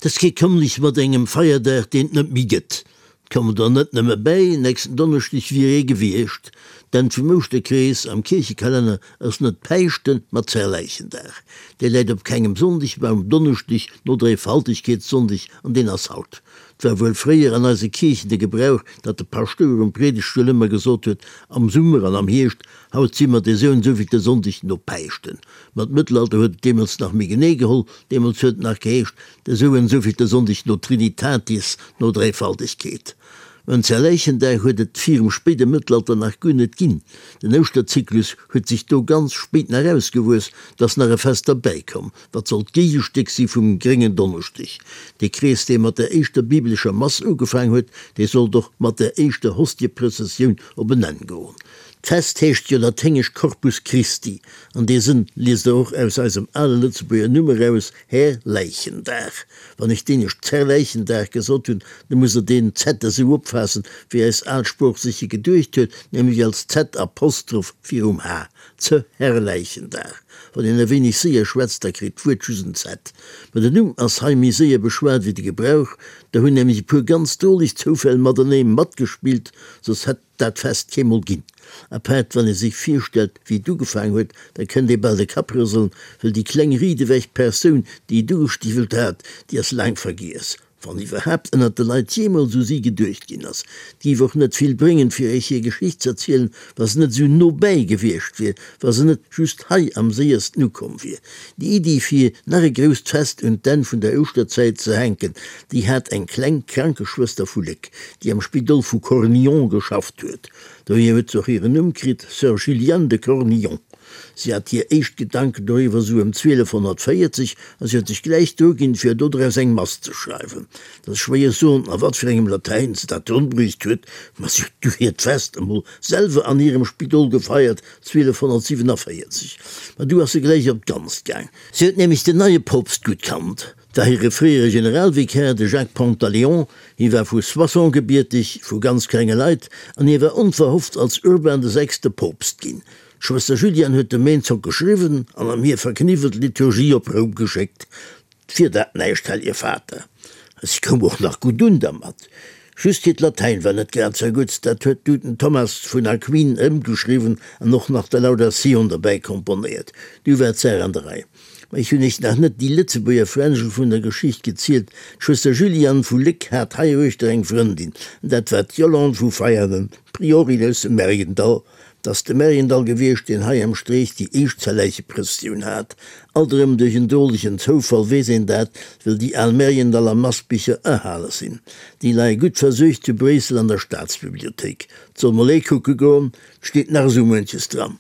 T'ass kee Kommlech mat engem Feierdag, deen et net méi gëtt. 't kommen der net nëmme bäi, nächsten Donneschdeg wier ee gewiescht. D'Enn vum Ouschterkrees am Kierchekalenner ass net Päischten, ma Zerläichendag. Dee läit op kengem Sonndeg, ma um Donneschdeg no Dréifaltegkeetssonndeg, an deen ass haut. 't war wuel fréier an eise Kierchen de Gebrauch, datt de Paschtouer um Priedegtstull ëmmer gesot huet, Am Summer an am Hierscht, haut si mer de sou en souvillte Sonndeg no Päischten. Ma d'Mëttelalter huet et deemools nach méi genee geholl, deemools huet et nach geheescht, de sou en souvillte Sonndeg no Trinitatis, no Dräifaltegkeet. Mä en Zerläichendag huet et virum spéide Mëttelalter nach guer net ginn. Den Ouschterzyklus huet sech do ganz spéit nach ausgewuess, 't ass nach e Fest derbäi komm, wat sollt d'Géigestéck si vum Gréngen Donneschdeg. Dee Krees, dee mat der éischter bibelescher Mass ugefaang huet, dee sollt och mat der éischter Hostieprëssessioun op en Enn goen. D'Fest heescht jo laténgesch Corpus Christi, an dee Sënn liest der och aus eisem ale Lëtzebuerger Numm eraus, Här Läichendag. Wann ech d'éinescht Zerläichendag gesot hunn, da musst der deen Z esou opfaassen, wéi eis al Sprooch sech e geduecht huet, nämlech als Z-Apostroph virum H, Zerläichendag. Wann een e wéineg séier schwätzt, da kritt d'Wuert just en Z. Mä den Numm ass hei méi séier beschwat wéi de Gebrauch, do hunn nämlech e puer ganz droleg Zoufäll matenee matgespillt, soss hätt. Dat Fest keemol ginn. Apaart wann ee sech virstellt, wéi et ugefaang huet, da kënnt ee bal de Kapp rëselen, wëll déi kleng riedewech Persoun, déi et ugestiwwelt hat, déi ass laang vergiess, wann iwwerhaapt ënnert de Leit jeemools u si geduecht ginn ass. Et géif och net vill bréngen, fir iech hir Geschicht z'erzielen, wa se net esou no bäi gewiescht wier, wa se net just hei am séiersten ukomm wier. Déi Iddi, fir nach e grousst Fest un d'Enn vun der Ouschterzäit ze hänken, déi hat eng kleng Krankeschwëster vu Léck, déi am Spidol vu Cornillon geschafft huet. Dohier huet se och hiren Numm kritt, Sœur Juliane de Cornillon. Si hat hir éischt Gedanken doriwwer sou ëm 1240 a si huet sech gläich druginn, fir dodraus eng Mass ze schreiwen. Et ass schwéier soen, a wat fir engem Latäin se dat ronbruecht huet, ma si huet du hiert Fest emol selwer an hirem Spidol gefeiert, 1247. Ma du ass se gläich op d'Ganzt gaang. Si huet nämlech den neie Poopst gutt kannt. 't war hire fréiere Generalvikär, de Jacques Pantaléon. Hie war vu Soissons gebierteg, vu ganz klenge Leit, an hie war onverhofft als Urban de Sechste Poopst ginn. D'Schwëster Juliane huet dem Eenzock geschriwwen an ëm hir verkniwwelt Liturgie op Roum geschéckt. 't wier dat näischt, Hellje Vater. A si koum och nach gutt un dermat. Just hiert Latäin war net grad sou gutt, dat huet du den Thomas vun Aquin ëmgeschriwwen an och nach de Laudatioun derbäi komponéiert. Du war d'Saach an der Rei. Ma ech hunn iech nach net déi Lëtzebuerger Fränjel vun der Geschicht gezielt. D'Schwëster Juliane vu Léck hat heiruechter eng Frëndin, an dat war d'Yolande vu Veianen, Priorin aus dem Mergendall. 't ass de Mergendall gewiescht, deen hei am Streech déi éischt Zerläicheprëssioun hat. Alt erëm duerch en drolegen Zoufall weess een dat, wëll déi al Mergendaller Massbicher erhale sinn. Déi leie gutt versuergt zu Bréissel an der Staatsbibliothéik. 't soll mol ee kucke goen, 't steet nach esou muenches dran.